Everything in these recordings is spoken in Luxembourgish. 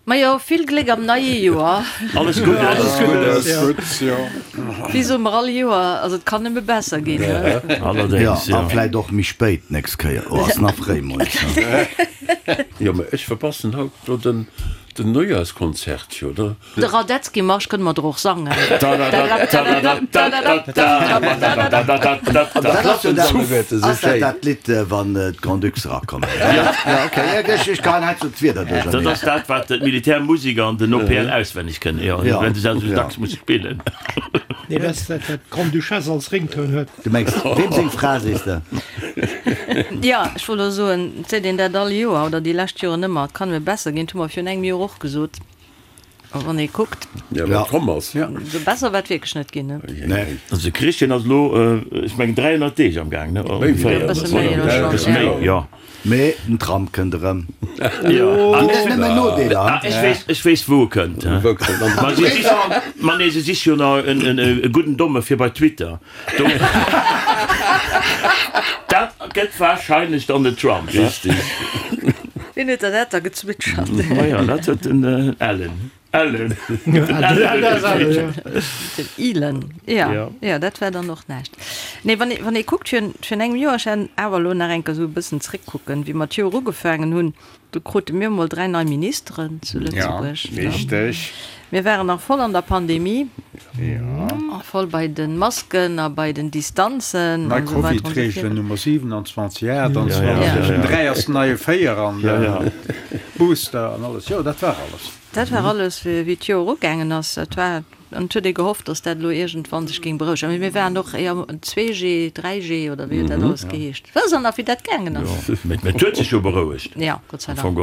Majo, vill Gléck am neie Joer. Alles Guddes. Alles Guddes, jo. Guddes, jo. Wéi soe mer all Joer, also et kann nëmme besser ginn, ne? Allerdéngs, jo. A vläit och méi spéit d'nächst Kéier. Oh, ass nach fréi moies, ne? Jo, mä ech verpassen haut do den Neujahrskonzert, jo, da. De Radetzky-Marsch kënne mer der och sangen. Ass dat dat Lidd, wann d'Grand-Ducs erakommen? Jo, ok, ech geheien hei zu d'Wierder duercherneen. Dat ass dat, wat d'Militärmusiker an den OPL auswenneg kënnen, jo, well se dat esou dacks musse spillen. Nee, dat ass dat, wat d'Grande-Duchesse als Ringtoun huet. Du mengs, weem seng Fra, sees de? Jo, ech wollt elo soen, et seet een dat all Joer oder déi lescht Joren ëmmer, et kann nëmme besser ginn. Dat hu mer virun engem Joer och gesot. A wann ee kuckt. Ja, wat komm ass. Esou besser war et wierklech net ginn, ne? Nee. Also de Christian ass elo, ech mengen 300 Deeg am Gaang, ne? Ongeféier. E bësse méi elo schonn, E bësse méi, jo. Mee den Trump kënnt erëm. Jo. Ginn et nëmmen Nodeeler, Ah, ech weess, ech weess wou e kënnt. Wou kënnt en? Ma si sichen, ma nee, se siche jo nach en, en, e gudden Domme fir bei Twitter. Do, dat gëtt wahrscheinlech dann den Trump, he? Richtig. Wien huet der dat da gezwitschert? Maja, dat huet den Ellen. Ellen. Den Ellen huet gezwitschert. Den Elon, ja. Ja, dat war dann och näischt. Nee, wann ee, wann ee kuckt, virun, virun engem Joer, ech hat awer elo nach eng Kéier esou e bëssen zréckkucken, wéi mer d'Joer ugefaangen hunn, Do krute mir emol 3 nei Ministeren zu Lëtzebuerg. Ja, richteg. Mir waren nach voll an der Pandemie. Ja. A voll bei de Masken a bei den Distanzen Nei an esou weider an esou Covid-Reegelen virun. Nummer 27, 28, den 3 ass den neie 4 an de Booster an alles. Jo, dat war alles. Dat war alles, wéi d'Joer ugaangen ass. Dat war An et huet ee gehofft, datt dat elo iergendwann sech géing berouegen. Mee mir waren och éier 2G, 3G oder wéi huet dat alles geheescht? Wësst Der nach, wéi dat gaangen ass? Jo, mee et huet sech jo berouegt. Jo, Gott sei Dank.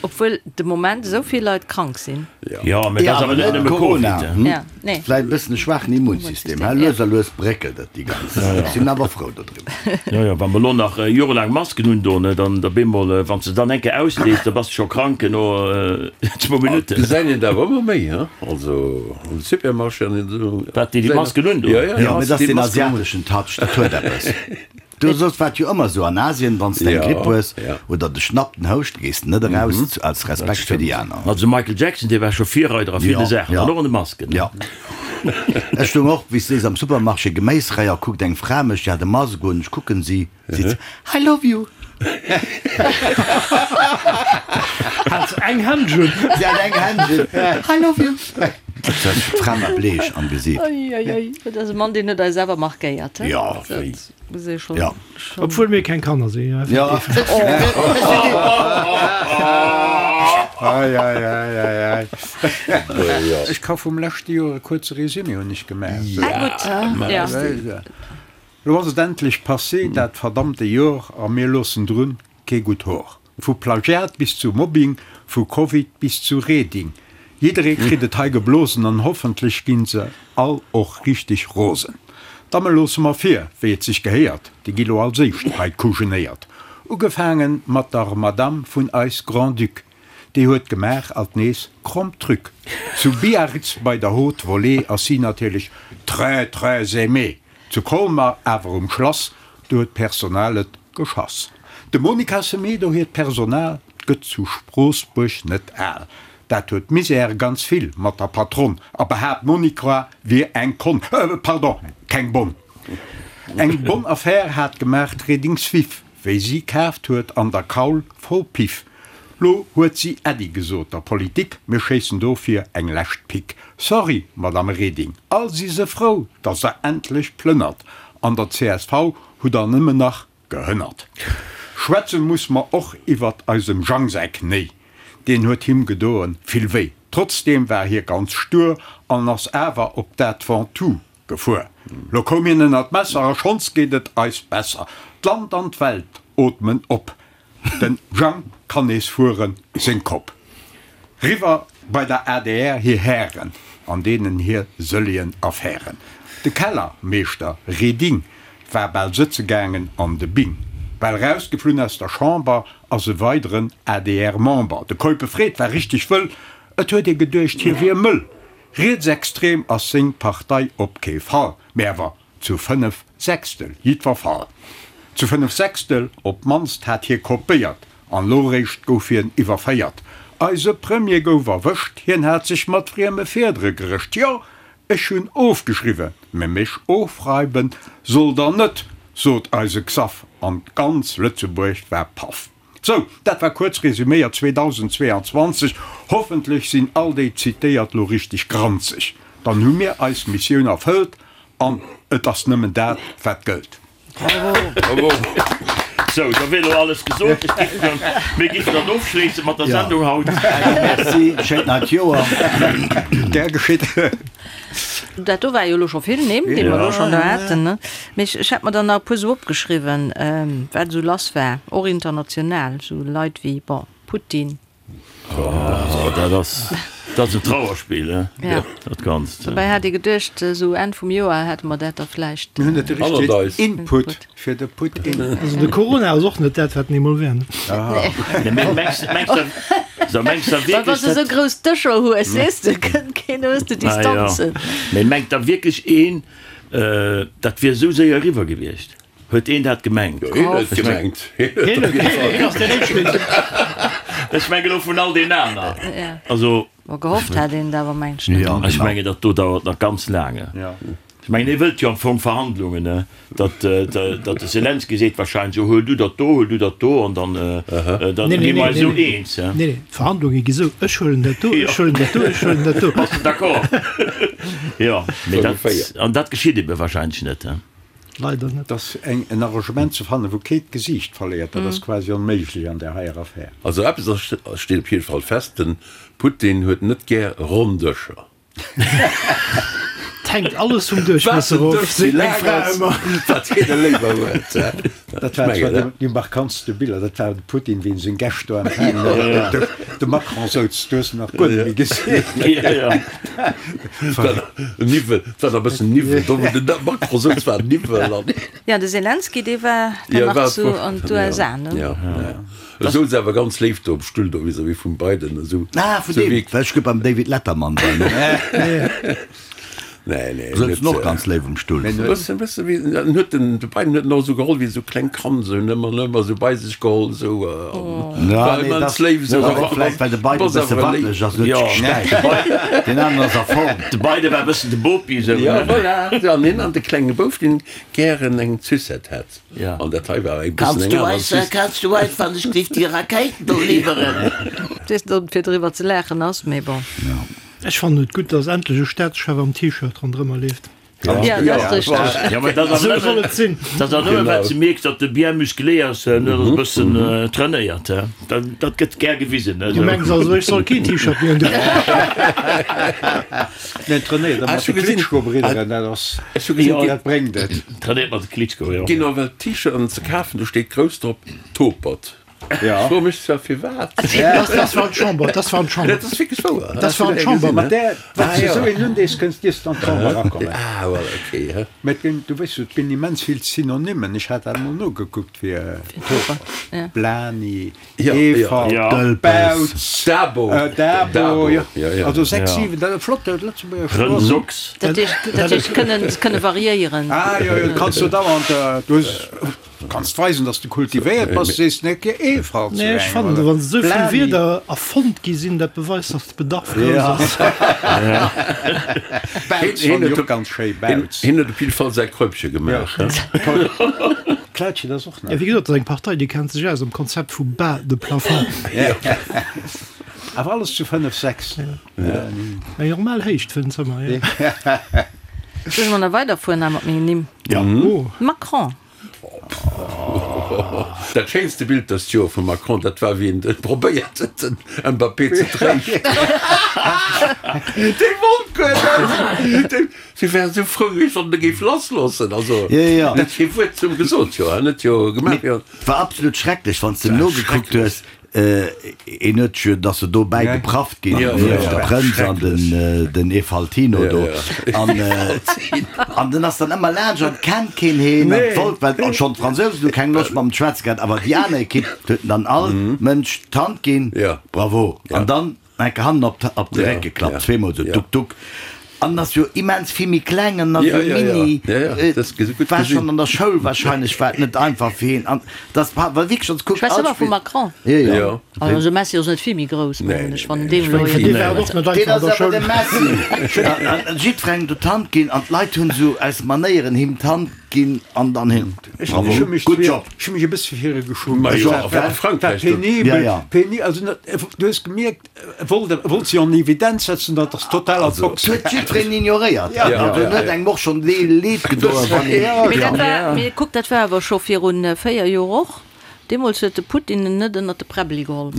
Obwuel de Moment esou vill Leit krank sinn. Jo, mee dat ass awer net nëmme Covid. Ja, nee. Vläicht e bëssen e schwaachen Immunsystem, hä? Lues a lues bréckelt et déi ganz Saach. Ech sinn awer frou dodriwwer. Jo, jo, wa mer elo nach jorelaang Masken undoen, dann op eemol, wann s de dann eng Kéier ausdees, da bass de scho krank no zwou Minutten. Gesäit een et awer ëmmer méi, he? Also am Supermarché an esou. Wat, déi déi Masken undoen? Jo, jo, Jo, mee dat ass deen asiateschen Touch, dat huet eppes. Du, soss war et jo ëmmer esou an Asien, wann s de eng Gripp hues oder dech schnappt den Houscht, gees de net eraus, als Respekt fir déi aner. Also de Michael Jackson, dee war scho Virreider a ville Saachen, an och an de Masken. Jo. Ech stoung och, wéi s de sees, am Supermarché, Geméisrei, a kuckt eng Fra mech, déi hat e Mask un, ech kucken si, Seet se, I love you. Hat se eng Händsch un? Si hat eng Händsch un. I love you. D'Fra war bleech am Gesiit. Oi, oi, oi. Dat ass e Mann, deen huet eis awer markéiert, he? Jo. Dat muss ee schonn. Jo. Obwuel mir keng Kanner sinn, jo, effektiv. Ei, ei, ei, ei, ei. Ech ka vum leschte Joer e kuerze Résumé hunn ech gemaach. Ah, gutt. Ja. Lo ass et endlech passé, dat verdammte Jor, a mir loossen drun kee gutt Hor. Vu Plagiat bis zu Mobbing, vu Covid bis zu Reding, jidderee kritt et hei geblosen an hoffentlech ginn se all och richteg rosen. D'Damme loosse mer vir, wéi et sech gehéiert, déi gi lo als éischt hei kujenéiert. Ugefaange mat der Madame vun eis Grand-Duc, déi huet gemaach alt nees kromm Truc. Zu Biarritz bei der Haute Volée ass si natierlech très très aimée. Zu Colmar awer um Schlass, do huet d'Personal et geschass. Dem Monica Semedo hiert Personal gëtt zu Stroossbuerg net al. Dat huet Misère ganz vill mat der Patronne a behaapt d'Monica wier eng Konn, pardon, keng Bonn. Eng bonne Affaire hat gemaach d'Redings Viv. Wéi si kaaft huet an der Kaul voll Piff. Lo huet si Äddi gesot der Politik, mir schéissen dofir eng lescht Pick. Sorry, Madame Reding, all si se frou, dass der endlech plënnert. An der csv hutt der nëmmen nach gehënnert. Schwätze muss mer och iwwert eisem Jang säi Knéi, deen huet him gedoen vill wéi. Trotzdeem war hie ganz stur an ass awer op dat Ventoux Gefuer. Lo koum hien ënner d'Messer a schonns geet et eis besser. D'Land an d'Welt ootmen op. Den Jang kann nees fueren, seng Kopp riwwer bei der adr hir Hären an deenen hir sëllien Affären. De Kellermeeschter Reding war bal sëtze gaangen an de Bing. Bal rausgeflunn aus der Chamber ass e weideren ADR-Member. De Keupe Fred war richteg wëll, et huet ee geduecht hie wier mëll. Rietsextrem ass seng Partei op kee Fall, mä awer zu 5 Sechstel jiddwer Fall. Zu 5 Sechstel op d'mannst hat hie kopéiert, an lo réischt gouf hien iwwerféiert. Eise Premier gouf erwëscht, hien hat sech mat frieme Fiedere gerëscht. Jo, ech hunn ofgeschriwwen, mä mech ofreiwen sollt der net, sot eise Xaph, an ganz Lëtzebuerg war paff. Sou, dat war kuerz resuméiert 2022. Hoffentlech sinn all déi zitéiert lo richteg granzeg. Dann hu mir eis Missioun erfëllt an et ass nëmmen dat, wat gëllt. Bravo! Sou, da wier elo alles gesot. Ech giff dann, mir giffen dann ofschléisse mat der Sendung haut. Merci, schéint neit Joer. Gär geschitt. Dat do war jo elo scho vill Nimm, déi mer elo schonn do haten, ne? Mee ech, ech hat mer dann nach e puer esou opgeschriwwen, wat esou lass war, och international, esou Leit wéi, bon, Putin. Oh, dat ass, dat ass en Trauerspill, he? Ja. Dat Ganzt. Dobäi hat ee geduecht, esou Enn vum Joer hätte mer dat da vläicht. Mir hunn net de richtegen Input fir de Putin. Also de Corona ass och net dat, wat en eemol war, ne? Nee, mee mengs, mengs de, so mengs de Well wann wierklech, s de esou dat. grouss Dëscher hues, weess de, kënnt keen, hues de Ah jo. Distanzen. Mee mengt da wierklech een, dat wier esou séier eriwwer gewiescht? Huet een dat gemengt? Jo, hien huet et gemengt. Hien huet et op jidde Fall. Ech mengen elo vun all deenen aner. Also. Bon, gehofft hat een et awer, mengen ech net. Ech mengen, dat do dauert nach ganz laang. Ech mengen, hie wëllt jo am Fong Verhandlungen, ne? Datt, datt de Selenskyj seet wahrscheinlech, jo, huel du dat do, huel du dat do, an dann, dann gi mer eis esou eens. Nee, nee, d'Verhandlunge gi sou, ech huelen dat do, ech huelen dat do, ech huelen dat do. Bass de d'accord? Jo, mee dat, an dat geschitt ebe wahrscheinlech net, he? Leider net. Dass eng en Arrangement ze fannen, wou kee d'Gesiicht verléiert, dat ass quasi onméiglech an där heier Affär. Also eppes ass steet op jidde Fall fest, de Putin huet net gär ronn Dëscher. Et hänkt alles vum Duerchmiesser Wat den of, Dësch méi seet meng laang Fra ass, ëmmer. wat hien e léiwer huet. Dat war zwar déi markantste Biller, dat war de Putin, wéi en seng Gäscht do empfaangen huet op dem Dësch. De Macron souz, du hues en nach guer net méi gesinn. Niwwel, et war nach e bëssen Niwwel do, wou den Macron souz, war Niwwel an. Jo, de Selenskyj, dee war dann nach zu an d'USA, ne? Jo, jo. E souz awer ganz léif do um Stull do vis-à-vis vum Biden, esou. Ah, vun deem, well ech gouf beim David Letterman war, ne? Nee, nee. Souz en och ganz léif um Stull. Bëssen, bëssen wéi, en huet den, de Biden huet en och esou geholl wéi esou klengt Kand, esou en ëmmer, ëmmer esou bei sech geholl, esou, an Ja, war nee, immens das, léif esou. das ass och vläicht, well de Biden e bësse wackeleg ass, huet sech gestäipt. Deen aneren ass a Form. De Biden war e bëssen de Bopi, esou, Ja, ne? voilà. An hien an de klenge Bouf, deen gären eng Sucette hätt. Ja. An dat hei war e bëssen Kanns eng du aner eis, Sucette. kanns du eis wann ech géif déi Rakéiten do liwweren? Weess net, ob et fir driwwer ze laachen ass, mee bon. Ech fannen et gutt, dass endlech e Staatschef am T-Shirt ronderëmmer leeft. Ja, dat ass richteg. Ja, mä dat ass Esou soll et sinn. Dat ass nëmmen, well s de mierks, datt e bien musclé ass, en ass e bëssen trainéiert, he. Dat, dat gëtt gär gewisen, Du mengs also, ech soll keen T-Shirt méi undoen? Nee, trainéiert mat de Klitschko-Bridderen, dat ass, Ech hu gesinn, dat bréngt et. Trainéiert mat de Klitschko, jo. Ginn nawell T-Shirten ze kafen, do steet grouss drop Topert. Ja. Ech froe mech zwar firwat. Dat war an d'Chamber, dat war an d'Chamber. Dat ass wierklech wouer. Dat war an d'Chamber. Mat där, wann s de esou een undees, kënns dierfs de an d'Chamber erakommen. Ah, voilà, okay. He. Mä et ginn, du weess jo, et ginn immens vill Synonymen. Ech hat dat emol nogekuckt fir Topert. Blani, Efalt, Bautz, Dabo, Dabo, jo. Also 6, 7, dat ass flott, dat Lëtzebuerger Sprooch. Rëndsocks. Dat heescht, dat heescht kënnen, kënne variéieren. Ah, jo, jo, kanns du dauernd, du hues. Du kanns weisen, dass de kultivéiert bass, sees net ge Efalt zu Nee, ech engem, fannen, oder? wann esou vill Blani. Wierder erfonnt gi sinn, dat beweist, dass de Bedarf grouss ass. Bautz fannen ech och ganz schéi, Bautz. Hien huet op jidde Fall säi Kräupche gemaach. Klautjen ass och Ja, nach. wéi gesot, dat ass eng Partei, déi kennt sech aus am Konzept vu bas de plafond. Awer alles zu 5, 6. Eng normal Héicht fir en Zëmmer, jo. Soll ech mol nach weiderfueren hei mat mengen Nimm? Ja. Macron. Dat schéinste Bild dëst Joer vum Macron, dat war wéi en probéiert huet den Mbappé ze tréischten. Dee wollt guer net. Dee si wär esou frou gewiescht, wann en e géif lassloossen. Also en huet kee Wuert zum gesot, jo en huet jo gemaach wéi. War absolut schrecklech, wann s de nogekuckt hues. Een huet jo, dass se do bäi geprafft ginn, nieft de Prënz an den Efaltino do. An den ass dann ëmmer laanscht an kennt keen heen an wollt, well schonn d'Fransousen hu keng Loscht mam schwätze gehat, awer déi aner Ekipp huet en dann all Mënsch d'Hand ginn, bravo, an dann enke hannen op de Réck geklappt, zweemol esou, duck duck. An ass jo immens vill méi kleng an ass esou mini. War schonn an der Schoul wahrscheinlech war et net einfach fir hien an dass war wierklech als kuckt. Schwätz ëmmer vum Macron. Jo. Also Messi ass net vill méi grouss mengen ech wann en deem elo Deen ass awer de Messi. An jiddwerengem do d'Hand ginn an d'Leit hunn esou aus Manéieren him d'Hand ginn an dann hin. Bravo, good job. Ech hu mech e bësse fir hie geschummt. War penibel, penibel, also du hues gemierkt, E wollt, e wollt si an Evidenz setzen, dat ass total ad hoc. Et huet jiddwereen ignoréiert. Also en huet engem och schonn leed gedoen, wann een. Mee dat war, mee kuck, dat war awer scho viru 4 Joer och. Deemools huet de Putin en net ënnert de Präbbeli geholl.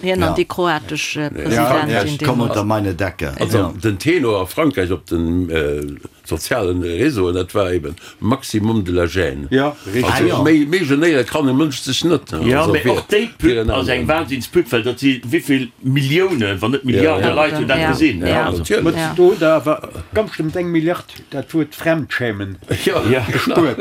Hien an déi kroatesch Presidentin deemools. Komm unter meine Decke. Also den Tenor a Frankräich op den sozialen Réseauen, dat war eben Maximum de la gêne. Ja, richtig. Also méi, méi genéiere kann e Mënsch sech net. Jo, mee och déi Pub ass eng Wahnsinnspub, well dat si wéivill Milliounen, wann net Milliarde Leit hunn dat gesinn. Ja, natierlech. Do hutt Der awer ganz bestëmmt eng Milliard dat Wuert Fremdschämen gespuert.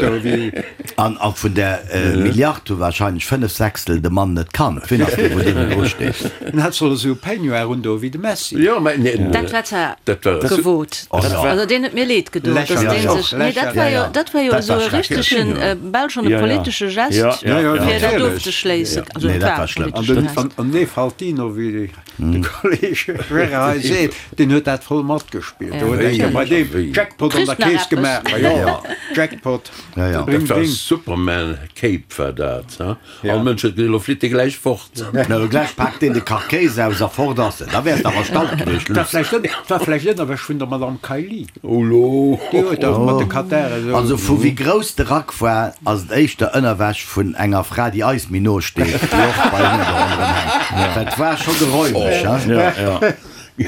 An vun där Milliard hu wahrscheinlech 5 Sechstel de Mann net kannt. Wien ass dee, wou deenen dru steet? En hat soll esou e Peignoir un do wéi de Messi. Jo, mä nee, Dat war zwar dat war gewot. Also deen huet mir leed gedoen, dass dee sech, nee dat war jo, dat war jo esou e richtegen, bal schonn e politesche Gest, fir dat ofzeschléissen. Also et war e politesche Gest. An dee Faltino, wéi de Kolleg Gérard hei seet, deen huet dat voll matgespillt. Do huet eng Kéier bei deem Jackpot an der Keess gemaach. Ma jo, Jackpot, bring, bring. Superman Cape war dat, ha? All Mënsch huet gesot, elo flitt dee gläich fort. Elo gläich paakt deen de Karkéis aus a fort ass en. Da wäers de awer stalt gewiescht, Luss. Dat war vläicht Ënnerwäsch vun der Madame Kaili. Oh lo! Déi huet dach mat de Katar esou. Also vu wéi grouss de Rack war, ass et éischter Ënnerwäsch vun enger Fra, déi eis méi no steet, déi och bei hinne do ronderëm hänkt. Dat war scho geräumeg, hein?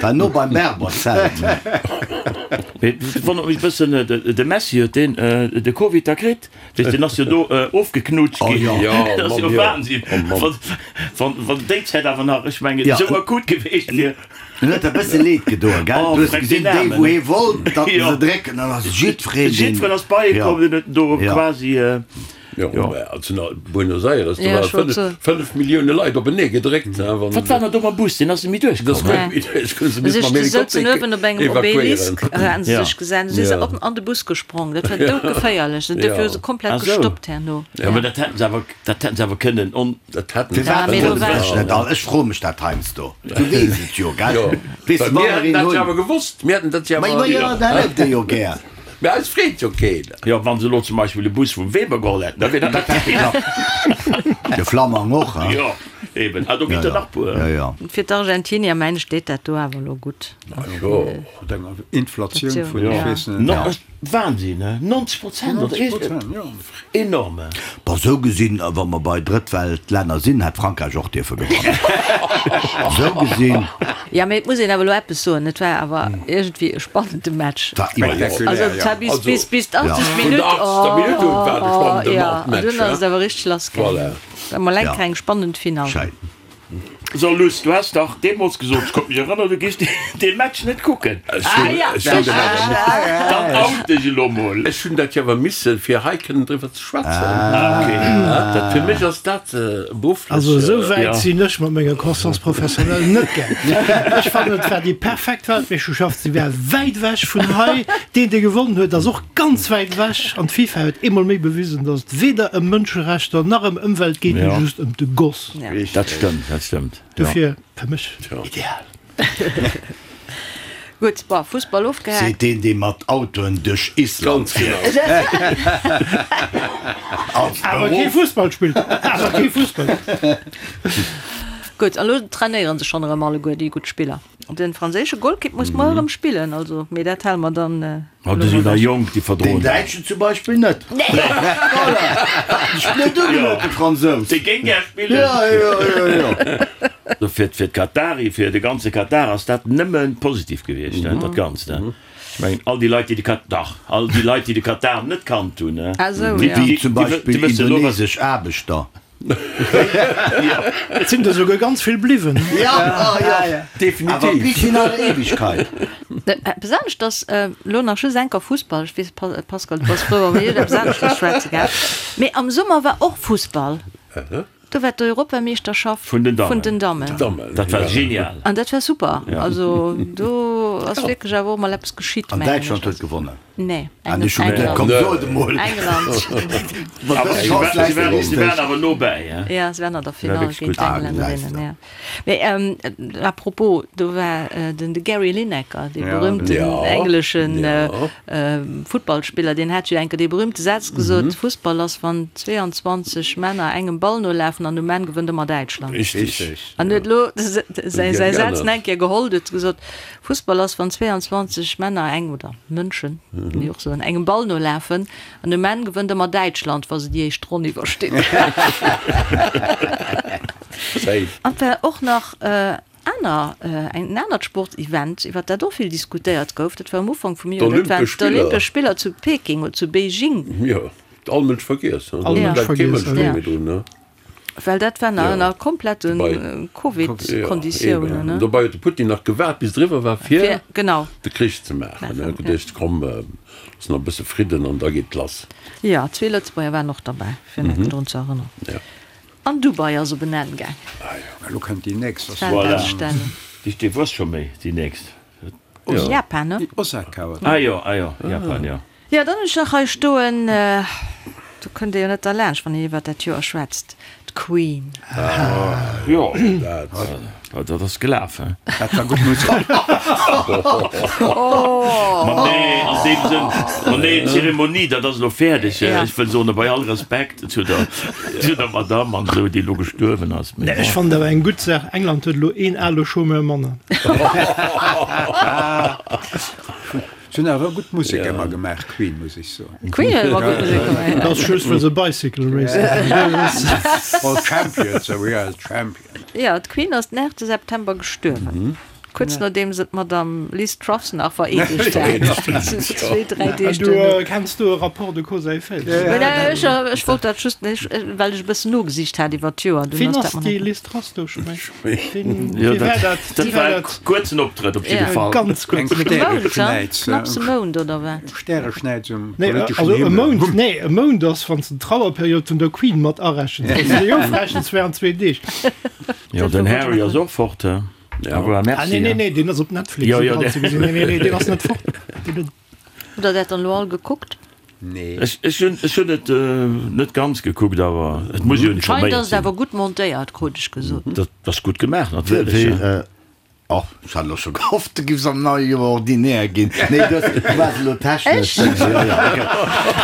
War no beim Berberzelt. Mee et wonnert mech e bëssen, de Messi huet deen de Covid da kritt? Weess, deen ass jo do ofgeknutscht ginn. Dat ass jo Wahnsinn, wann déi Zäit awer nach, ech mengen, esou akut geweecht wier. En huet der e bësse leed gedoen, gell? Du hues gesinn, déi wou hee wollt, datt en se drécken, dann ass jiddwereen deen. Jiddwereen ass bei e komm, deen huet en do quasi. Jo, mä also nach Buenos Aires, do ware 5 Millioune Leit openee gedréckt. Wat war nach do mam Bus? Deen ass net méi duerchkomm. Deen ass net méi duerchkomm, se misste mam Helikopter evakuéieren. Op engem Obelisk haten se sech gesat, du si se op an de Bus gesprong. Dat war doudgeféierlech. Dofir hu se komplett gestoppt herno. Jo, mä dat hätten se awer, dat hätten se awer kënnen on. Dat hätten se. Firwat wëllen se sech net all? Ech froe mech dat heiansdo. Du weess et jo, gell? Weess de, wa mer een hunn. Mir hätten dat jo awer gewosst. Mir hätten dat jo awer. Ma jo, dat hätt Dir jo gär. Mä eis freet jo keen. Jo, wann se elo zum Beispill e Bus vum Weber geholl hätten, da wier dat Dat hätt geklappt. De Flammang och, hein? Jo, eben. Ah, do ginn der nach puer. Jo, jo. Fir d'Argentinier, mengen ech, steet dat do awer elo gutt. Jo. Mat enger Inflatioun vun, ech weess net. Wahnsinn, ne? 90 Prozent oder 90 Prozent, jo. Enorm. Bon, sou gesinn, wa mer bei Drëttweltlänner sinn, hätt Frankräich och dierfe gewannen. Sou gesinn. Jo, mee et muss een awer elo eppes soen, et war awer iergendwéi e spannende Match. War iwwerhaapt. Also et war bis, bis, bis d'80. Vun Minutt, der 80. Minutt un war et e spannende oh, jo, an Match, dunn ass et awer richteg lass gaangen. Voilà. War mol eng kleng spannend Finall. Schéin. So Luss, du has dach deemols gesot, ech konnt mech erënneren, du giffs dee Match net kucken. Dann out dech elo mol. Ech hunn dat jo awer missen, fir hei kënnen driwwer ze schwätzen. Dat fir mech ass dat berufflech. Also esou wäit sinn ech mat menger Conscience professionnelle net gaang. Ech fannen et war déi perfekt Weltmeeschterschaft, se war wäit ewech vun hei. Deen dee gewonnen huet ass och ganz wäit ewech an d'FIFA huet eemol méi bewisen, datt et weder ëm Mënscherechter nach ëm Ëmwelt geet, mee just ëm de Goss. Dat stëmmt, dat stëmmt. Dofir fir mech ideal. Gutt, bon, Fussball ofgehaakt. Seet deen, dee mat Autoen duerch Island fiert. Als Awer kee Beruff. Fussball spillt. Awer kee Fussball. Gutt, an elo trainéiere se schonn erëm alleguer, déi gutt Spiller. Den franséische Golkipp muss muer erëm spillen, also, mee dat hale mer dann Ma déi sinn nach jonk, déi verdroen Den Däitschen zum Beispill net. Voilà! Hat sech blöd ugeluet, de Fransous. Dee géing gär spillen. Jo, jo, jo, jo. Fir fir d'Katari, fir de ganze Katar ass dat nëmme positiv gewiescht, dat Ganzt. Ech mengen, all déi Leit, déi de Kat, dach, all déi Leit, déi de Katar net kannt hunn, Déi déi zum Beispill wëssen elo, wat. indonesesch Aarbechter. Et sinn der souguer ganz vill bliwwen. Definitiv. Bis in alle Ewigkeit. Eppes anescht ass elo nach just enker Fussball. Ech weess, Pascal, du bass frou, wa mir iwwer eppes aneschters schwätze, gell? Mee am Summer war och Fussball. Do war d'Europameeschterschaft Vun den Dammen. Vun den Dammen. Dammen, Dat war ja. genial. An dat war super. Also do ass wierklech awer och mol eppes geschitt, An mengen ech. Däitschland huet gewonnen. Nee, An ech hu geduet, komm, England. so et emol. England. Mat Awer dëser si Chance war, si läit war, si et waren awer no bäi, hein. Ja, se waren an der War Finall wierklech géint gutt. Ah, d'Engländerinnen, gesäis de. ja. Mee à propos, do war den de Gary Lineker, dee Ja, berühmten Ja, engleschen ja. Futtballspiller, deen hat jo enke dee berühmte Saz gesot, Fussball ass, wann 22 Männer engem Ball nolafen an um Enn gewënnt ëmmer Däitschland. Richtig. An huet elo säi Geännert. Saz nach eng Kéier geholl, huet gesot, Fussball ass, wann 22 Männer eng, oder Mënschen, kann ee och soen, engem Ball nolafen an um Enn gewënnt ëmmer Däitschland, wa se déi éischt Ronn iwwerstinn. Safe. An et war och nach aner, en anert Sportsevent, iwwer dat och vill diskutéiert gouf, dat war um Ufank vum Joer, dat waren D'Olympesch Spiller. d'Olympesch Spiller zu Peking oder zu Beijing. Jo, huet all Mënsch vergiess, ne? All Do Mënsch bleift kee vergiess, Mënsch ja. méi drun, ne? Well dat war nach Ja. ënner komplette Dobei- Covid-Konditiounen, Ja, eben. ne? Dobei huet de Putin nach gewaart, bis et eriwwer war, fir Fir, genau. de Krich ze maachen. Maachen, En huet ja. geduecht, komm, looss nach e bësse Fridden an da geet et lass. Jo, zwee Lëtzebuerger waren och derbäi, fir nach drun ze erënneren. Ja. An Dubai ass op en Enn gaang. Elo kënnt déi nächst. D'Weltausstellung. Voilà. Déi wuess scho méi, déi nächst. Japan, ne? Osaka, oder? Ah jo, ah jo, Japan, jo. Jo, dann hunn ech nach hei stoen, do kënnt ee jo net derlaanscht, wann een iwwert dat Joer schwätzt, d'Queen. Jo, dat ass gelaf, he? Dat war gutt Musek. Ma nee, an deem Sënn, ma nee, d'Zeremonie, dat ass elo fäerdeg. Ech wëll soen, bei all Respekt zu der, zu der Madamm an esou, déi elo gestuerwen ass, mee Ech bon. fannen awer eng gutt Saach, England huet elo een ale Chômeur manner. Se hunn awer gutt Musek ëmmer gemaach, Queen, muss ech soen. Queen huet ëmmer gutt Musek gemaach. Dat ass just well se Bicycle Race gemaach. Well Champions, we are the champions. Jo, d'Queen ass den 8 September gestuerwen, kuerz nodeem se d'Madame Liz Truss nach vereedegt hat. Zwee, dräi Deeg Du duerno. kenns do e Rapport de cause à effet? Ech ech wollt dat just, well ech e bëssen nogesicht hat iwwer d'Joer. Wien ass déi Liz Truss do scho méi? Jo, Wie war dat? dat Wie war war e dat? kuerzen Optrëtt op jidde Ja. Fall. Ganz Eng kuerz. Stäreschnäiz, Knapps e Mount, oder wat? Stäreschnäiz um Nee, politeschen also e Himmel. Mount, nee, e Mount ass, wann s de d'Trauerperiod vun der Queen mat arechens. Wann s de déi ofrechens, wären zwee Deeg. Jo, den Harry ass och fort, he? Ja. Au revoir, Ah, merci. nee, nee, nee, deen ass op Netflix Jo, jo, iwwerall ze gesinn. Nee, nee, nee, deen ass net fort. Deen huet. Hutt der dat dann elo all gekuckt? Nee. Ech, ech hunn, ech hunn et net ganz gekuckt, awer et muss jo Scheint informéiert ass et sinn. awer gutt montéiert, krut ech gesot. Dat ass gutt gemaach, natierlech. Wéi, och, ech hat elo scho gehofft, du giffs am neie Joer ordinär ginn. Nee, du hues, du waars elo technesch. Ech? Jo, jo, okay.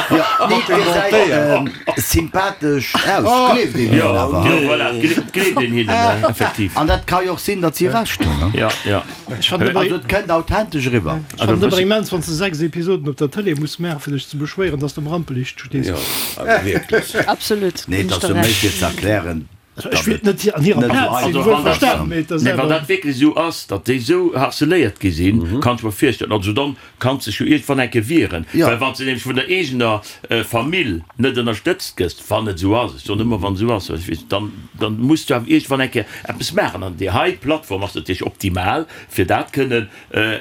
Jo, nee, et gesäit sympathesch aus, gleeft een Jo, hinnen awer. jo, voilà, et gleeft, gleeft een hinnen, effektiv. An dat ka jo och sinn, datt si Recht hunn, ne? Ja, ja. Ech fannen awer, Also et kënnt authentesch eriwwer. ech fannen et awer immens, wann s de 6 Episoden op der Tëlee muss maachen, fir dech ze beschwéieren, dass de am Rampeliicht stees. Jo, awer wierklech. Absolut, Nee, ginn et ech ass der jo méi Recht. fir ze erklären, Also ech wéilt net an hirer Net Plaz esou sinn, Also wuel wann dat, verstanen, mee et ass nee, wann awer. dat wierklech esou ass, datt déi esou harceléiert gi sinn, kann ech mer virstellen, also dann kanns dech jo iergendwann eng Kéier wieren, Jo. well wann s de nämlech vun der eegener Famill net ënnerstëtzt gëss, wann et esou ass, ech soen ëmmer wann et esou ass, well ech weess, dann, dann muss du awer iergendwann eng Kéier eppes maachen an déi hei Plattform ass natierlech optimal, fir dat kënnen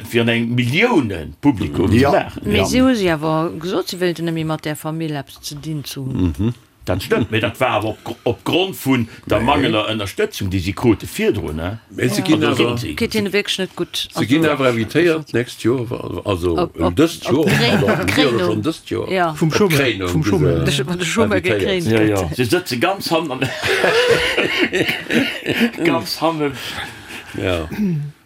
fir an engem Milliounen-Publikum ze Jo. maachen. Mee si hu si awer gesot, si wéilten net méi mat där Famill eppes ze dinn ze hunn. Dat stëmmt, mee dat war awer op Grond vun der mangelnder Ënnerstëtzung, déi si krute virdrun. Mee se ginn awer, Geet hinne wierklech net gutt. se ginn awer invitéiert d'nächst Joer, also dëst Joer, pardon, si jo schonn dëst Joer, Vum op Chômeur, d'Kréinung vum gi Chômeur. se Wann de Chômeur invitéiert. gekréint Jo, jo, gëtt. se sëtze ganz hannen, ganz hannen. Ja.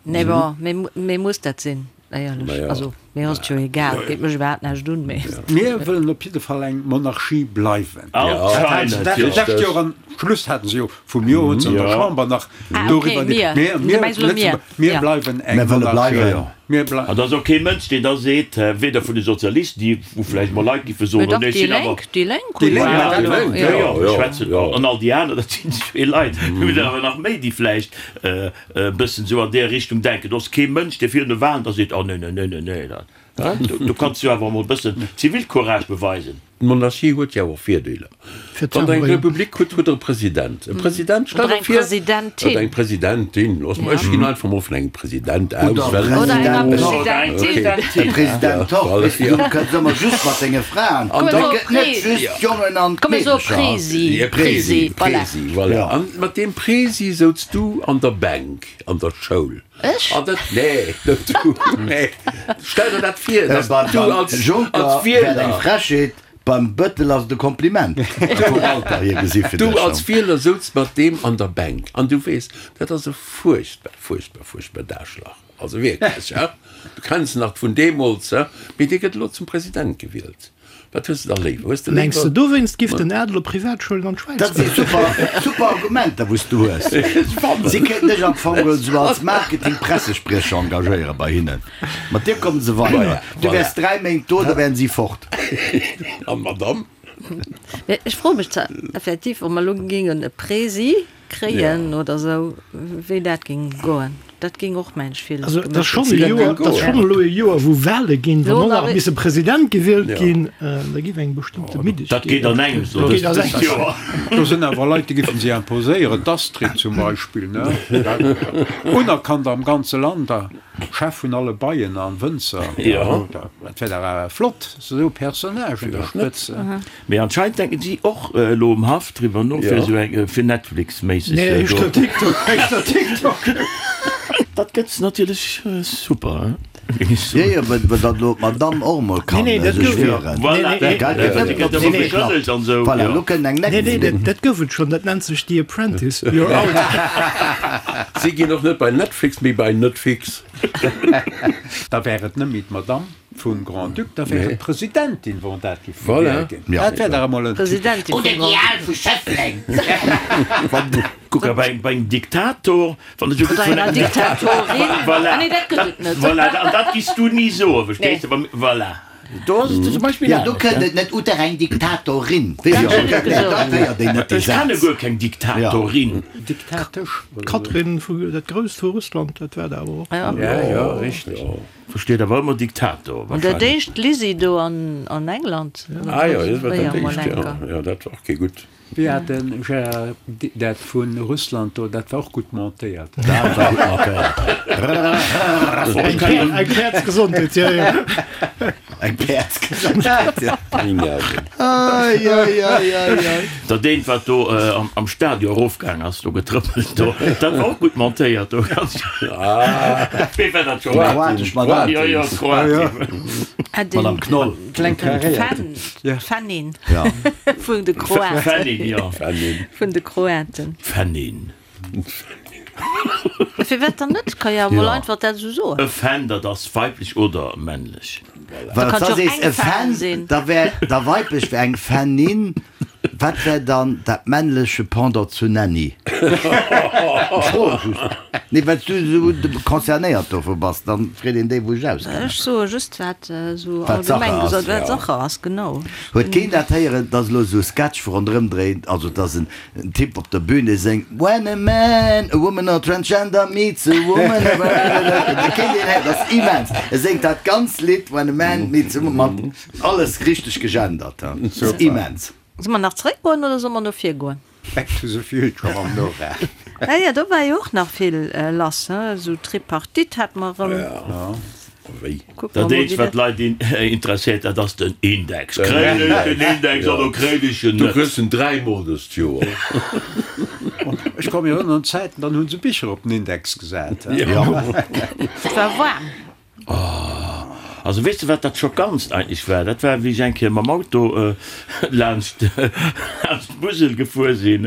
Nee, bon, mee, mee muss dat sinn, éierlech? Naja. Also, mir ass et jo egal, geet mech iwwerhaapt näischt un, mee. Mir wëllen op jidde Fall eng Monarchie bleiwen. Anscheinend, Dat jo. lescht Joer am Schluss haten se jo vum Joer hunn se an der Ja. Chamber nach Ah, okay, doriwwer mir. Mir, Du mir, mengs elo mir. Lëtzebuerg, mir Ja. bleiwen eng Mir wëlle Monarchie. bleiwen. Mir blei. An et ass och kee Mënsch, deen da seet, weder vun de Sozialisten, déi wou vläicht mol Leit géife Mee soen, dach, nee, ech déi sinn awer. Lénk, déi Lénk Déi hunn Lénk, jo dat elo, war- Jo, jo. jo, Ja, ech schwätzen ja. an all déi aner, dat sinn zwee Leit. Mir hunn awer nach méi, déi vläicht e bëssen esou an där Richtung denken. Do ass kee Mënsch, dee virun de Wahlen da seet, Oh nee, nee, nee, nee, nee, dat, do kanns du awer emol e bëssen Zivilcourage beweisen. D'Monarchie huet jo och Virdeeler. Wann Der eng Republik hutt, hutt Der e President. E President, stell der vir, Oder eng Presidentin. Oder eng Presidentin. Loosse mer, ech ginn einfach mol vun engem President aus, Oder well. Oder enger Presidentin. Presidentin. E President och. Weess de, du kënns ëmmer just mat denge Fraen. Komm, Et mir soe gëtt net Presi. just d'Jongen an Komm, mir soe d'Meedecher. Presi. E Presi, Presi, voilà. Presi, voilà. An mat deem Presi souz du an der Bänk an der Schoul. Ech? An dat, nee, net du, nee. Stell der dat vir, dass Beim du als, als Juncker wär et Wieler. eng Frechheet, beim Bëttel ass et e Kompliment. Vum Alter hier gesi fir Du dech. als Wieler souz mat deem an der Bänk an du weess, dat ass e fuerchtbar, fuerchtbar, fuerchtbar Daschlach. Also wierklech, he? Du kenns en nach vun deemools, he? Mee dee gëtt elo zum President gewielt. Wat hues de da léiwer? Hues de Mengs de léiwer. dowéinst giff den Adel op Privatschoulen an d'Schwäiz Dat si goen? super, super Argumenter, wou s du hues. Si kéinten dech am Fong geholl esou als Marketing-Pressespriecher engagéiere bei hinnen. Mat dir kommen se weider. Du wäers 3 Méint do, da wären si fort. An d'Madame? Mee ech froe mech zwar effektiv, ob mer elo géingen e Presi kréien oder esou, wéi dat géing goen. Dat géing och mensch vill Also et ass schonn e Dat Joer, géing et ass goen. schonn elo e Joer, wou Wahle ginn, wann Lo och nach nach misse President gewielt ginn, da giff eng bestëmmte Middegkeet. Dat geet an engems lo Dat geet an dëst engems. Joer. Do sinn awer Leit, déi giffen si imposéieren, d'Astrid zum Beispill, ne? Unerkannt am ganze Land a Chef vun alle Beien an Wënzer. Jo. Dat wär dach awer flott, esou Personnage un der Spëtz. Mee anscheinend denken si och elo um Haff driwwer no fir esou eng fir Netflix-méisseg Nee, do. éischter TikTok, éischter TikTok. Dat gëtt natierlech super, hein, géing ech Jo, soen. jo, well well dann elo d'Madame och emol Nee, kann nee, dat sech gouf, wieren. Voilà, nee, nee, Gell, dat gëtt net gëtt op ëmmer si nee, geklappt. beschëllegt an esou, Voilà, jo. elo kënnt eng nee, nee, nächst. dat, dat gouf et schonn, dat nennt sech The Apprentice, you're out. Si ginn och net bei Netflix, mee bei Netfix. Da wär et net méi d'Madame vum Grand-Duc, da wär et d'Presidentin, wann dat giff Voilà. gewielt ginn. Dat wär dach emol en. Presidentin vum Oder déi Grand-Duc. al vu Schëffleng. Kuck, a bei engem Diktator, wann et esou Oder gutt vun enger engem Diktatorin. Voilà. Ah nee, dat gëtt et net. Voilà, an dat giss du ni soen, verstees de? Voilà. Do ass et zum Beispill Ja, do anescht, kënnt ne? et net Oder eng Diktatorin. Weess Dat jo, hunn ech gesot. dat héiert een net, dee Ech kenne Saz. guer keng Diktatorin. Diktatesch. D'Katrin vu, dat Grousst vu Russland, dat war der awer och. Ja. Ja, ja, richteg. Versteet awer ëmmer Diktator An dat wahrscheinlech. éischt Lizzie do an an England. Ah jo, dat war dat Fréier mol éischt, jo. enker. Jo, dat war och kee gutt. Wéi hat de Gérard dat vu Russland do, dat war och gutt montéiert. Dat war gutt montéiert. Eng Päerdsgesondheet, jo, jo. Eng Päerdsgesondheet, jo. Ai, ai, ai, ai, ai. Dat eent wat do am Stadion erofgaang ass, do getrëppelt do, dat war och gutt montéiert do. Wee war dat scho? Kroatesch Madame. Jo, jo, Kroatien. Madame Knoll. Kleng karéiert. D'Fannin Ja. vun de Kroaten. Fannin, jo. Fannin. Vun de Kroaten. Fannin. Firwat dann net? Ka jo emol Ja. einfach dat esou soen. E Fan, dat ass weiblech oder männlech. Well kann da jo sees eng e Fan Fan, sinn. da wär da weiblech wär eng Fannin. Wat wär dann dat männleche Pendant zu Nanny? Ech froe just. Nee, well s du esou concernéiert dovu bass, dann freet een déi, wou ech auskennen. Ech soe just, wat esou Wat Sache allgemeng ass. gesot, wat Sache ass, genau. Huet keen dat héieren, dass elo esou e Sketch ronderëm dréint, also dass en Typ op der Bühne séngt When a man, a woman or transgender meets a woman, a Kéint een héieren, dat ass immens. E séngt dat ganz Lidd When a man meets a woman mat alles richteg gegendert. Dat ass immens. Solle mer nach zeréckgoen oder solle mer no vir goen? Back to the future mam Nora. Ja, ja, do war jo och nach vill lass, he, esou Tripartite hat mer erëm. Ja, wéi? Kucke mer Dat mol, eenzegt, wéi wat dat. d'Leit interesséiert, dat ass den Index. Kréien ech den Index oder kréien ech en Du net? kriss en dräimol dëst Joer. Ech ka mech erënneren un Zäiten, dann hu se Bicher op den Index gesat. Ja. Et war waarm. Also weess de wat dat Schockantst eigentlech war? Dat war wéi ech eng Kéier mam Auto laanscht laanscht d'Musel gefuer sinn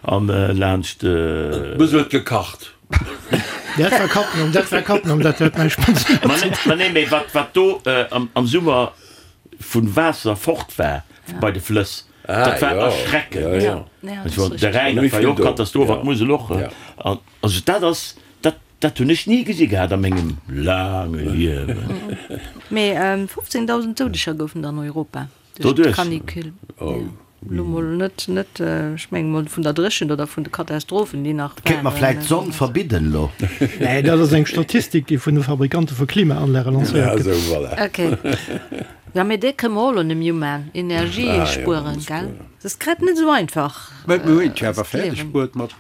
an laanscht. D'Musel huet gekacht. Dat war Cattenom, dat war Cattenom, dat huet näischt mat ze Ma nee, ma nee, mee wat wat do am Summer vun Waasser fort war bei de Flëss, dat war erschreckend. De Rhäin, dat war jo och Katastroph an d'Musel och. An also dat ass dat Dat hunn ech ni gesi gehat a mengem laange Liewen. Mee 15.000 Doudeger goufen der an Europa duerch d'Canicule. Elo mol net, net, ech menge mol vun der Dréchent oder vun de Katastrophen, déi nach Kéint mer waren. vläit d'Sonn verbidden elo? Nee, dat ass eng Statistik, déi vun de Fabrikante vu Klimaanlage lancéiert gëtt. Esou, voilà. Okay. Jo, mee dee kënne mer och elo net méi umaan. Energie spueren, gell? Et ass grad net esou einfach. Mä mir hunn et jo awer fäerdeg bruet mat,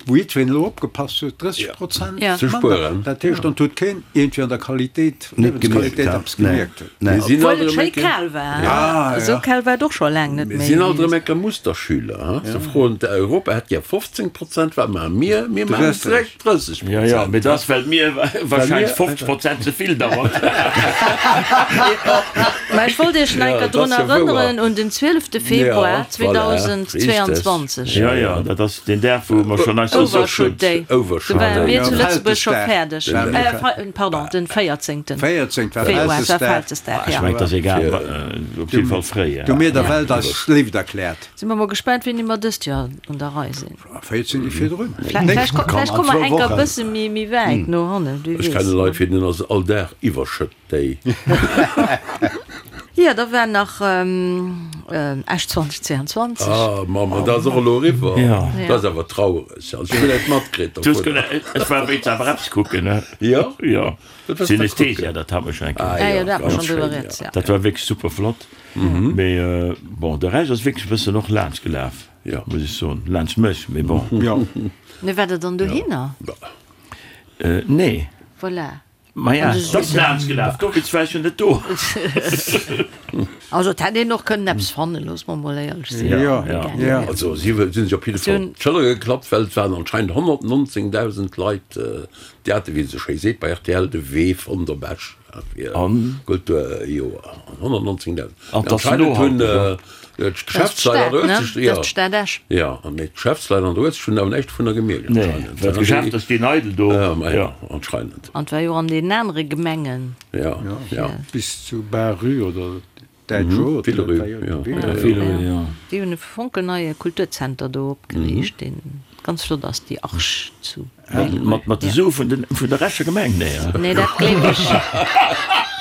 wou jiddwereen elo opgepasst huet, 30 Prozent ze spueren. Dat heescht, dann huet keen iergendwéi an der Qualitéit, Liewensqualitéit eppes gemierkt. Mir sinn Obwuel alt et erëm schéi eng Kéier. kal war. Esou kal war et och scho laang net Mir méi. sinn alt erëm eng Kéier Musterschüler, ha? Se froen, Europa hätt gär 15 Prozent, wat maache mir? Mir maachen direkt 30 Jo, jo, mee dat ass, well mir wahrscheinlech 50 Prozent ze vill dauert. Mä ech wollt Iech nach eng Kéier drun erënneren un den 12 Februar Ja, voilà, 2022. Jo, jo, dat ass deen Dag, wou mer schonn eis Overshoot Day. Overshoot Do ware Day. mir zu Lëtzebuerg scho fäerdeg. Veltesdag. Pardon, den 14. 14 war Februar war Vältesdag. Vältesdag, Ech ja. mengen, et ass egal, op jidde Fall fréi. Du mir der Welt eis Léift erkläert. Si mer mol gespaant, wéini mer dëst Joer un der Rei sinn. 14 Deeg virdrun. Vläicht komme mer enker e bësse méi wäit no hannen, wie Ech weess. kenne Leit, fir deenen ass all Dag Iwwerschëtt Day. Jo, da war nach Esch 2022. Ah Mamm, an dat ass och elo eriwwer. Dat ass awer traureg. Also ech hunn net matkritt dovunner. Ech war wéinst awer eppes kucken, ne? Jo? Jo. Wat warst du kucken? Synesthesia, dat hat mer schonn eng Kéier. Ah jo, dat hat mer ganz schonn driwwer schéin, rieds, jo. ja. Dat war wierklech super flott. Mee bon, de Rescht ass wierklech e bëssen och laanscht gelaf. Jo. Muss ech soen. Laanscht mech, mee bon. Jo. Mee war der dann dohinner? Nee. Voilà. Maja, et ass laanscht gelaf, dowéinst war ech jo net do. Also et hätt een och kënnen eppes fannen, loosse mer mol éierlech sinn. Jo, jo. Also si hu sech op jidde Fall op d'Schëller geklappt, well et waren anscheinend 119.000 Leit, déi hate, wéi een esou schéi seet bei rtl, de Wee fonnt op Esch fir Kulturjoer. 119.000. An et ass Anscheinend hunn nohalteg. D'Geschäftsleit an der Uelzecht, jo. Dat ass d'Stad Esch. Jo, an mee d'Geschäftsleit an der Uelzecht hunn awer näischt dovunner gemierkt Nee, anscheinend. well d'Geschäfter stinn eidel do. Ja, ma jo, anscheinend. An et war jo an deenen anere Gemengen. Ja, ja. Bis zu Barrue oder Däitsch Rue. Villerue, jo. Villerue, jo. Déi hunn e fonkelneie Kulturzenter do opgeriicht, deen ganz flott ass, déi Arche zu. Mat mat de Sue vun den vun der Escher Gemeng? Nee, hein? Nee, dat gleef ech.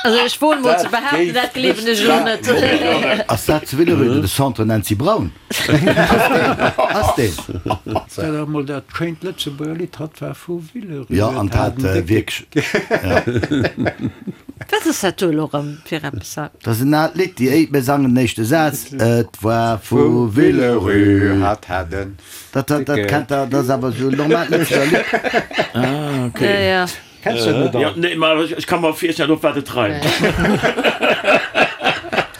Also ech woen mol ze behaapten, dat gleewen ech elo net. Ass dat zu Villerupt de Centre Nancy Braun? Ass deen? Dat ass mol dat schéint Lëtzebuerger Lidd, Hatt war vu Villerupt. Jo, an dat wierklech. Wat ass dat do elo erëm fir eppes? Dat ass en aalt Lidd, déi éi, mir sangen den éischte Saz, Et war vu Villerupt. Hatt hat en Dat, dat, dat kennt der, dat ass awer esou en normaalt Lëtzebuerger Lidd. Ah, okay. Ja, ja. Kenns du dat net Ja, all? nee, ma ech, ech ka mer virstellen, op wat et reimt.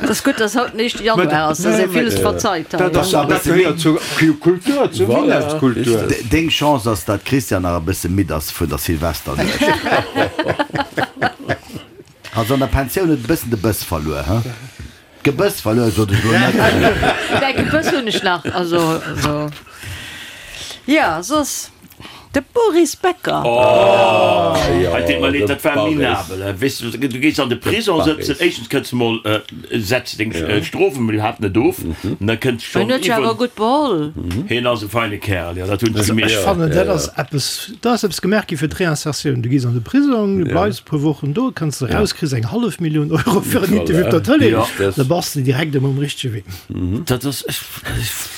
Et ass gutt, dass haut den éischte Januar ass, dass ee villes verzeit hei. Dat ass, dat gehéiert zur Kultur, zur Voilà, Winnerskultur. richtig. Deng Chance ass, dat d'Christiane nach e bësse midd ass vun der Silvesternuecht. Also an der Pensioun huet e bëssen de Bëss verluer, he? D'Gebëss verluer, sot ech elo net. Mäi Gebëss hunn ech nach, also also jo, soss de Boris Becker. Oh, hei deet mer leed, dat war minabel. Weess du, du gees an de Prison sëtzen, éischtens kënns de mol, setz deng Strof emol iwwerhaapt net of, an da kënns Hien schonn huet jo awer iwwer. gutt beholl. Hien ass e feine Kerl, jo, dat hunn ech gemierkt. Ech fannen, dat ass eppes, do ass eppes gemaach gi fir d'Reinsertioun. Du gees an de Prisong, du bleifs e puer Wochen do, kënns eraus, kriss eng hallef Millioun Euro fir en Interview op der Tëlee, da bass de direkt erëm um richtege Wee. Dat ass, ech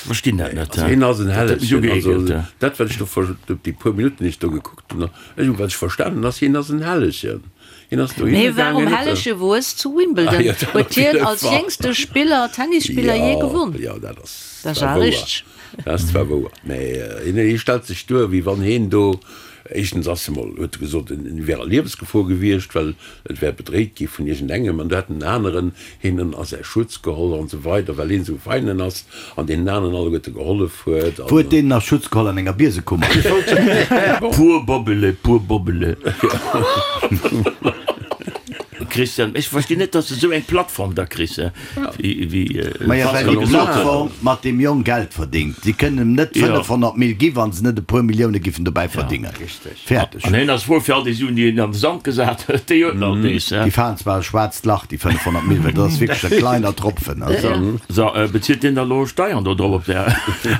verstinn dat net. Also hien ass en Dat huet mech Hellegchen. Also ugeekelt. dat wat ech do ver, déi puer Minutten déi ech do gekuckt hunn, ech hunn wat ech verstanen ass, hien ass en Hellegchen. Hien ass dohinner Mee warum gaangen, huet Hellege wues zu Wimbledon Ah jo, dat huet op hien jidde als Fall. jéngste Spiller, Tennisspiller jee Jo, gewonn. jo, dat ass Dat ass zwar awer wouer. richteg. Dat ass zwar wouer, mä hien, hie stellt sech duer, wéi wann hien do, éischtens ass e mol, huet e gesot, en wär a Liewesgefor gewiescht, well et wär bedréit gi vun iergendengem, an do hätt en aneren hien a säi Schutz geholl an esou weider, well hien esou feinen ass an deenen aneren alleguerte gehollef huet. Wou huet deen a Schutz geholl? An enger Biesekummer? Pur Bobbele, pur Bobbele. Christian, ech verstinn net, dass de esou eng Plattform da kriss, wéi Maja, well Pascal déi gesot huet. Plattform mat deem Jong Geld verdingt. Si kënnen em net 500 Mil gi wa se net e puer Millioune giffen dobäi verdingen. Fäerdeg. An hien ass frou fir all déi Suen, déi hien an de Sand gesat huet, déi huet en alt nees. Déi falen zwar e schwaarzt Lach, déi 500 Mil, well dat ass wierklech e kleiner Tropfen. Also. So, bezilt deen da lo Steiern do drop op där,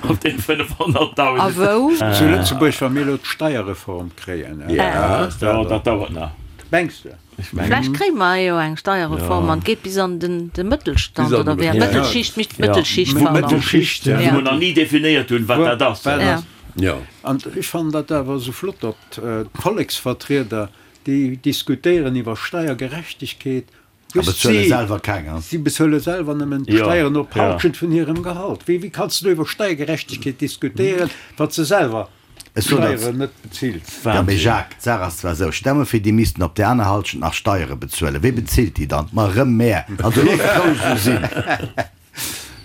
op deene 500.000? A wou? Zu Lëtzebuerg, wa mir elo d'Steierreform kréien. Jo, dat dauert nach. Mengs de? Vläicht kréie mer jo eng Steierreform an et geet bis an den de Mëttelstand Bis an oder de wéi? Mëttelstand. Mëttelschicht, Mëttelschicht, pardon. Mëttelschicht, ja. Wou mer nach ni definéiert hunn, wat dat ass. Ja. Jo. An ech fannen dat awer esou flott, datt d'Volleksvertrieder, déi diskutéieren iwwer Steiergerechtegkeet. A bezuele selwer keng, ha? Si bezuele selwer nëmmen d'Steieren op d'Halschent vun hirem Gehalt. Wéi, wéi kanns du do iwwer Steiergerechtegkeet diskutéieren, wann s de selwer d'Steieren net bezills? Jo, mee Jacques, d'Saach ass zwar esou, stell mer vir, déi missten op där aner Halschent nach Steiere bezuelen. Wee bezilt déi dann? Ma erëm mär. Also looss et roueg esou sinn.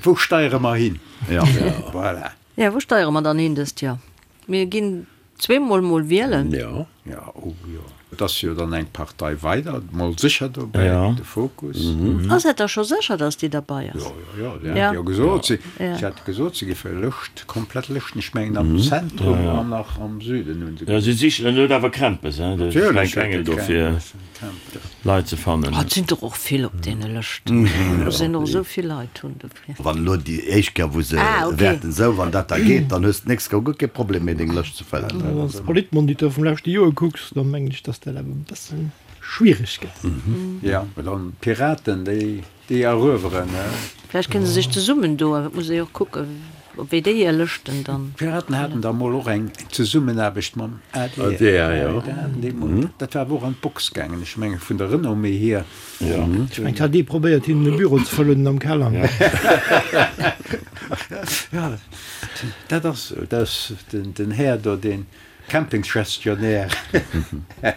Wou steiere mer hin? Jo. Voilà. Jo, wou steiere mer dann hin dëst Joer? Mir ginn zweemol mol wielen. Jo. Jo, oh jo. Et ass jo dann eng Partei weider mol sécher dobäi, de Fokus. Ass dat da scho sécher, datt déi derbei ass? Jo, jo, jo, déi hat jo gesot, si hat gesot, si géife Lëscht, komplett Lëschten, ech mengen am Zentrum an nach am Süden hunn se gesot. Jo, si sichen, en huet awer Krämpes, hein, de Fränk Engel do fir Leit ze fannen. Oh, et sinn der och vill op deene Lëschten, do sinn och esou vill Leit hunn dofir. Wann elo déi éischt Kéier wou se wäerten esou, wann dat da geet, dann hues de d'nächst Kéier guer kee Problem méi deng Lëscht ze fëllen. Wann s de Politmonitor vum leschte Joer kucks, da mengen ech, datt dat awer e bësse schwiereg gëtt. Jo, mä dann d'Piraten, déi déi erueweren. Vläicht kënne se sech zesummen doen, et muss ee jo och kucken, op wéi déi hir Lëschten dann. D'Piraten haten da mol och eng Zesummenaarbecht mam adr. Dat war awer och an d'Box gaangen, ech menge vun der Renommée hier. Ech mengen, hat ee probéiert hinnen e Büro ze verlounen am Keller. Jo, dat ass esou. Dat ass den Här do, dee Campingsgestionnaire. Ech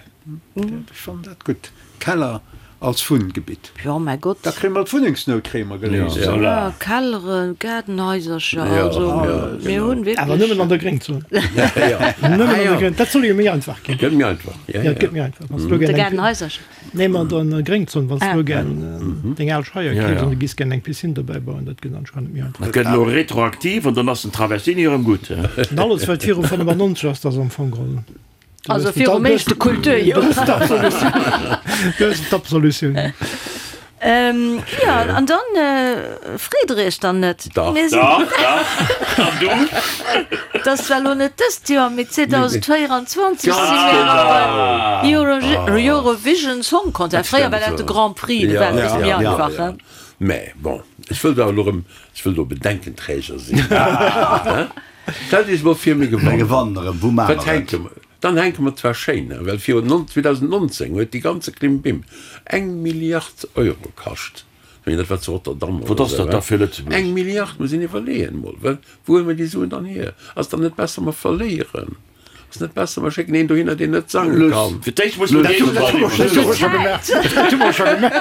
fannen dat gutt. Keller als Wunngebitt. Jo, mäi Gott. Da kréie mer d'Wunnengsnout kréie mer geléist. Jo, Kelleren, Gaardenhaisercher, also mir hunn wierklech. Awer nëmmen an der Gréngzon. Nëmmen an der Gréng, dat soll jo méi einfach ginn. Gëtt méi einfach, jo, jo. Gëtt méi einfach. Wann s du elo gär eng. De Gaardenhaisercher. Nee, ma an der Gréngzon, wann s du elo gär deng al Scheier keefs an du giss gär eng Piscine dobäi bauen, dat gëtt anscheinend méi einfach. Dat gëtt elo retroaktiv an dann ass den Traversini erëm gutt. An alles wat viru 95 ass, dat ass am Fong geholl. Also virum éischte Kulturjoer. Du hues d'Absolutioun. Jo, an dann freet Der Iech dann net? Dach, dach, dach. An du? Et ass zwar elo net dëst Joer, mee 2024 si mir erëm beim Eurovision Song Contest. Fréier war dat de Grand Prix, do war et e bësse méi einfach, he? Mä bon, ech wëll da elo erëm, ech wëll do Bedenkenträger sinn. Stellt Iech emol vir, mir gewannen. Mir gewannen erëm, wou maache mer et? Dann hänke mer zwar schéin, well virun 2019 huet déi ganze Klimbim eng Milliard Euro kascht. Ech mengen, dat war zu Rotterdam oder esou. Wat ass dat da fir Lëtzebuerg? Eng Milliard, muss een iwwerleeën emol, well wou huele mer déi Suen dann hier? Ass dann net besser, mer verléieren? Ass net besser, mer schécken een dohinner, deen net sange kann? Fir d'éischt muss mer déi Dat hu mer scho gemaach. Dat hu mer scho gemaach.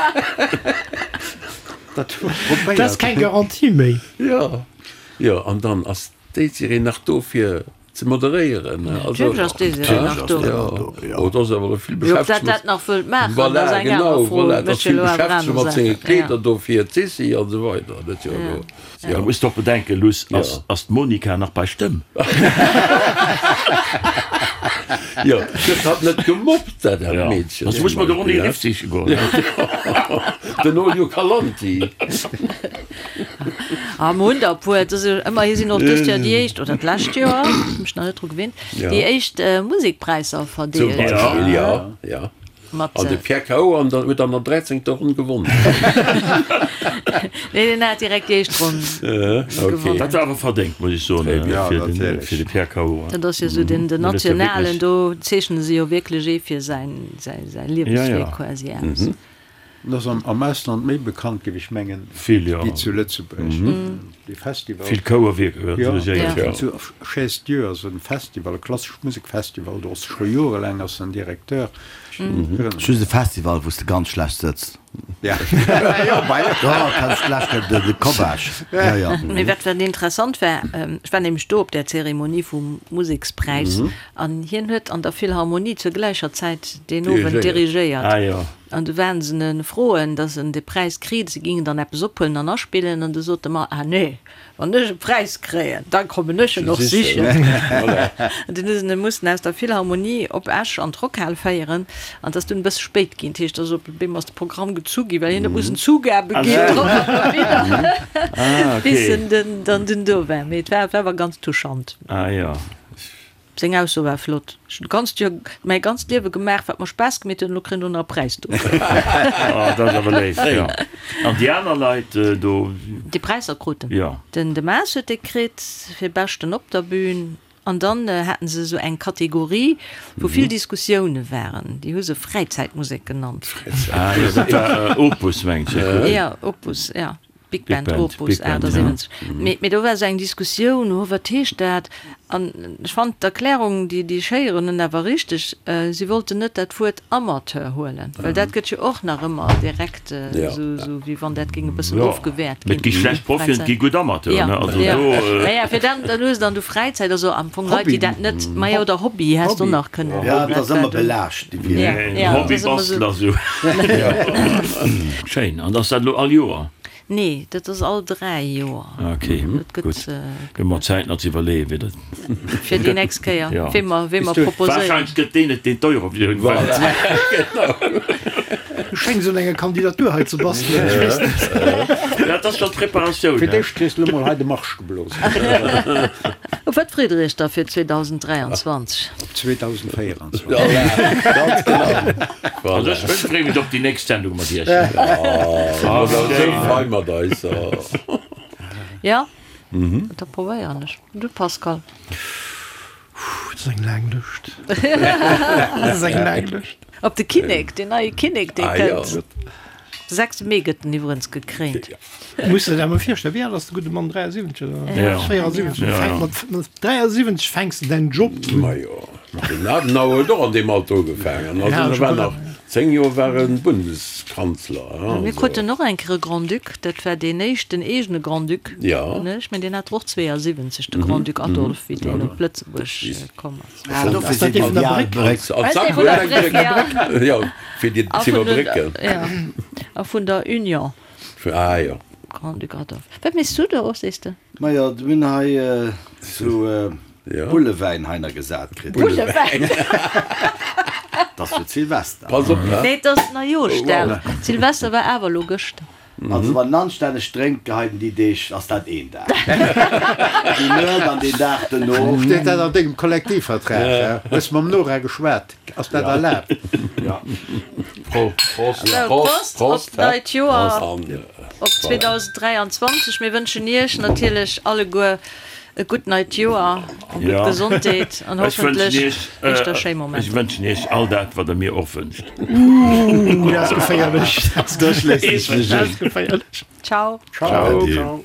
Dat hu mer probéiert. Dat ass keng Garantie méi. Jo. Jo, an dann ass d'Désirée nach do fir ze moderéieren. Natierlech ass d'Désirée nach do. Jo, oh, et ass awer elo vill Jo, ob dat dat nach wëllt maachen, Voilà, ass eng aner genau, Fro. voilà, et ass Mécht jo vill elo awer Beschäftegung aner mat senge Saachen. Kleeder do fir d'Sissi an esou weider. Dat ass jo elo. Jo. Du muss doch bedenken, Luss, ass, ass d'Monica nach bei Stëmm? Jo, gëtt hatt net gemobbt, dat dat Meedchen? Soss muss mer de Ronny Riff siche goen. Den Olio Calanti. Ah, mer hunn der e puer. Et ass jo ëmmerhi sinn och dëst Joer déi éischt, oder d'lescht Joer, hu mech nach net dru gewinnt, déi éischt Musekpräisser Zum verdeelt. Beispill, ja, ja. Mat. An de Pierre Cao an der, huet an der dräizéngter Ronn gewonnen. Nee, deen hat direkt déi éischt Ronn gewonnen. Dat war awer verdéngt, muss ech soen, fir den, fir de Pierre Cao. Dat ass jo esou den, den nationalen, do zeechne se jo wierklech ee fir säin, säi, säi Liewenswierk quasi aus. En ass am Ausland méi bekannt, géif ech mengen, wéi zu Lëtzebuerg. Dee Festival. Vill Chouerwierker dirigiert. Jo, zu Chaise-Dieu ass e Festival, e klassesch Musekfestival, do ass e scho jorelaang ass en Directeur. Just e Festival, wou s de ganz schlecht sëtz. Jo, Jo, kenns d'lescht Kéier de Kobbach. Jo, jo. Mee wat wat interessant war, ech war nämlech do op där Zeremonie vum Musekspräis an hien huet an der Philharmonie zur gläicher Zäit deen Owend dirigéiert. An du waren se en froen, dass en de Präis kriit, se gingen dann eppes ophuelen an aspillen, an du sot de Mann, Ah nee, wann ech e Präis kréien, da kommen ech en och sichen. An dunn hu se en mussen aus der Philharmonie op Esch an d'Rockhal féieren, an et ass dunn e bësse spéit ginn, dat heescht, dass op eemol ass de Programm gezu ginn, well hien huet mussen Zugabe ginn drop an derwidder, bis en dann dunn do war. Mee et war awer ganz touchant. Seng Ausso war flott, Ech hunn d'ganzt Joer, mäi ganzt Liewe gemaach, wat mer Spaass gemeet huet, an elo kréien ech och nach e Präis dofir. Oh, dat ass awer léif, jo. An déi aner Leit do? Déi Präisser kruten? Jo. Den De Maas huet dee kritt fir Beschten op der Bühn. An dann haten se esou eng Kategorie, wou vill Diskussioune waren. Déi hu se Fräizäitmusek genannt. Ah jo, dat war Opus, mengt ech. Jo, Opus, jo. Big Band Opus 78. Mee do war esou eng Diskussioun, oh wat heescht dat? An ech fand d'Erklärung, déi déi ech héieren hunn, awer richteg, si wollten net dat Wuert Amateur huelen, well dat gëtt jo och nach ëmmer direkt esou, wéi wann dat géing e bëssen ofgewäert ginn. Mee et gi schlecht Profien, et gi gutt Amateuren, ne? Also do. Naja, fir dann, dann hues de an du Fräizäit, also am Fong Leit, déi dat net, majo, oder Hobby häss de och nach kënnen. Jo, et ass ëmmer belaascht, déi Wierder. Hobbybastler, esou. Schéin. An ass dat elo all Joer? Nee, dat ass all 3 Joer. Ok, gutt. Hu mer Zäit nach ze iwwerleeën, wéi dat. Fir déi nächst Kéier, wee mer, wee mer proposéieren. Warscheinlech gëtt deen et, deen d'Eurovisioun wënnt. Du schéngs un enger Kandidatur hei ze bastelen, ech weess net. Dat ass schonn d'Preparatioun. Fir d'éischt kriss de elo mol hei de Marsch geblosen. Op wat freet der iech da fir 2023? Op 2024. Ganz genau. Also ech freeë mech op déi nächst Sendung mat iech. Esou frei mat eis. Jo, da probéieren ech. Du Pascal? Dat ass eng laang Lëscht. Dat ass eng laang Lëscht. Op de Kinnek, deen neie Kinnek, dee kënnt. De 6 Mee gëtt en iwwerens gekréint. Muss der dat mol virstellen, wéi al ass de gudde Mann? 73 oder 74? Fänkt mat, mat 73 fänks de däin Job un. Majo, den Adenauer huet och an deem Alter ugefaangen. Also e war nach 10 Joer war e Bundeskanzler. Mir Also. kruten och eng Kéier e Grand-Duc, dat war deen éischten eegene Grand-Duc, Ja. ne? Ech mengen, deen hat och 72, de Grand-Duc Adolphe, wéi deen op Lëtzebuerg komm ass. Ah, dofir sinn déi al Bréck. An d'Sackbuerg. Jo, fir déi ze iwwerbrécken. A vun der Union. Ah jo. Grand-Duc Adolphe. Wat méchs du do, sees de? Majo, mir hunn hei sou Bullewäin heiner gesat kritt. Bullewäin? Dat ass fir d'Silvester. Pass op, he? Nee, et ass Neijooschdag. Silvester war awer elo gëschter. Also wann en anstänneg drénkt geheien déi Deeg, ass dat een Dag. Déi Nuet an deen Dag dono. Steet dat an dengem Kollektivvertrag? Hues mam Nora geschwat? Ass dat erlaabt? Ja. Prost, Prost op d'neit Joer, op 2023. Mir wënschen Iech natierlech alleguer e gutt neit Joer, eng gutt Gesondheet an hoffentlech éischter schéi Momenter. Ech wënschen Iech all dat, wat Der mir och wënscht. Ooh, dat ass geféierlech. Dat ass geféierlech. Ciao. Ciao.